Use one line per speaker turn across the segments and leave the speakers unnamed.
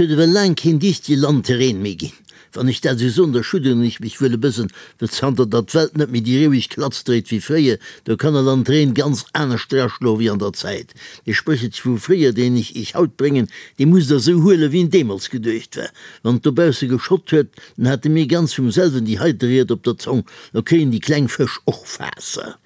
Et huet ewell laang keen dichtege Landterrain méi ginn. Wann ech dat esou soen, da schudderen ech mech wuel e bëssen, well zanter datt d'Welt net méi déi roueg Klatz dréit wéi fréier, do kann e Landterrain ganz anescht draschloe wéi an der Zäit. Dee Spréchelche vu fréier, deen ech iech haut bréngen, dee musst der esou huelen, wéi en deemools geduecht war. Wann et dobausse geschott huet, dann hate mir ganz vum selwen déi heite Ried op der Zong, Lo kréien déi kleng Fësch och Waasser.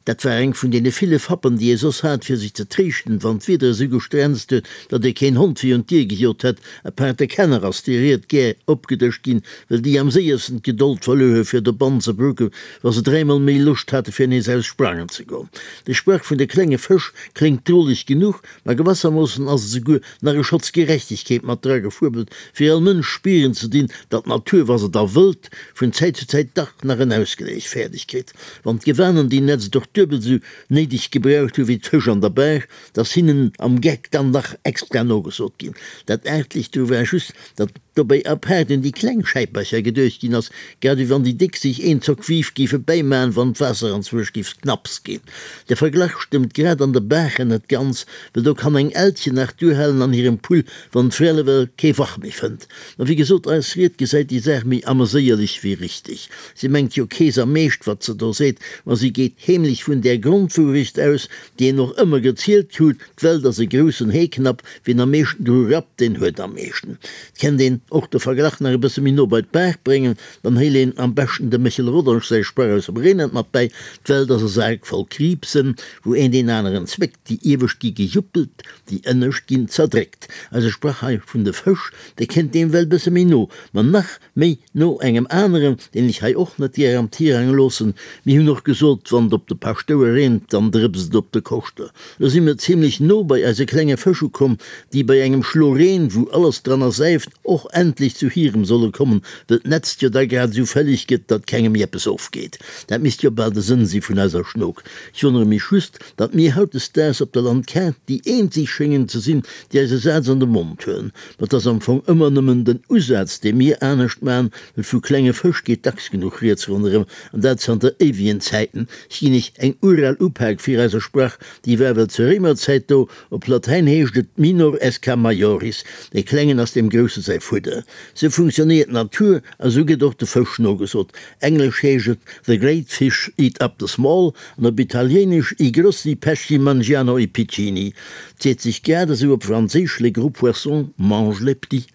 Dat war eng vun deene ville Fappen, déi ee soss hat, fir sech ze tréischten, wann d'Wieder esou gestrenzt huet, datt ee keen Hond virun d'Dier gejot hätt. Apaart de Kenner ass déi Ried gär opgedëscht ginn, well déi am séiersten d'Gedold verluer hu fir dobannen ze brucken, wa se dräimol méi Loscht hate fir nees aus sprangen ze goen. De Sprach vun de klenge Fësch kléngt droleg genuch, ma gewassermoossen ass et esouguer nach e Schotz Gerechtegkeet mat dra gefuebelt, fir all Mënsch spieren ze dinn, datt d'Natur, wa se da wëllt, vun Zäit zu Zäit dach nach en Ausgléich fäerdeg kritt. Wann d'Gewanen déi Netzt och duebel sou néideg gebraucht hu wéi d'Fësch an der Baach, 't ass hinnen am Geck dann nach extra nogesot ginn. Dat Aartlecht dru war just, datt dobäi apaart un déi kleng Schäipercher geduecht ginn ass, grad ewéi wann déi déck sech een Zock Wief géife bäimaen, wann d'Waasser anzwousch géif knapps ginn. De Verglach stëmmt grad an de Baachen net ganz, well do kann eng Elchen nach duerhalen an hirem Pull, wann d'Frell ewell kee Wach méi fënnt. Ma wéi gesot, eis Ried gesäit déi Saach méi ameséierlech wéi richteg. Si mengt jo kees am Meescht, wat se do seet, ma si geet heemlech vun där Grondwourecht aus, déi een och ëmmer gezielt krut, D'Welt ass e groussen Heeknapp, wien am meeschten dru rappt, deen huet am meeschten. Et kennt een och de Verglach nach e bësse méi no bei d'Baach bréngen, dann héil een am beschten dem Méchel Rodange säi Sprach aus dem Reenert mat bäi, D'Welt ass e Sak voll Kriibsen, wou een deen aneren zwéckt, déi iewescht gi gejuppelt, déi ënnescht ginn zerdréckt. Eise Sprach hei vun de Fësch, dee kënnt deem well bësse méi no, ma nach méi no engem aneren, deen ech hei och net gär am Tirang loossen. Mir hunn och gesot, wann et op de Paschtouer reent, dann drëpst et op de Koschter. Lo si mir zimlech no bei eise klenge Fësch ukomm, déi bei engem Schlo Reen, wou alles dran ersäift, och endlech zu hirem solle kommen, well d'Netzt jo da grad esou fälleg gëtt, datt kengem méi eppes ofgeet. Dat misst jo bal de Sënn si vun eiser Schnok. Ech wonnere mech just, datt mir hautdesdaags op der Landkaart déi eenzeg schéngen ze sinn, déi eise Saz an de Mond huelen. Ma 't ass am Fong ëmmer nëmmen den Usaz, dee mir anescht man, well vu klenge Fësch geet dacks genuch rieds ronderëm, an dat zanter éiwegen Zäiten. Ech ginn iech eng ural Upak fir eiser Sprach, déi war well zur Réimerzäit do. Op Latäin heescht et minor esca majoris, dee Klengen ass deem Grousse säi Fudder. Sou funktionéiert d'Natur a sou gëtt och de Fësch nogesot. Englesch heescht et the great fish eat up the small an op Italiéinesch i grossi pesci mangiano i piccini. 't seet sech grad esou op Franséisch les gros poissons mangent les petits.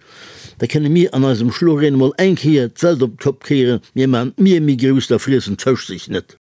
Da kënne mir an eisem Schloreen emol eng Kéier d'Welt op d'Kopp kéieren, mir man d'Mier méi grouss, da friessen d'Fësch sech net.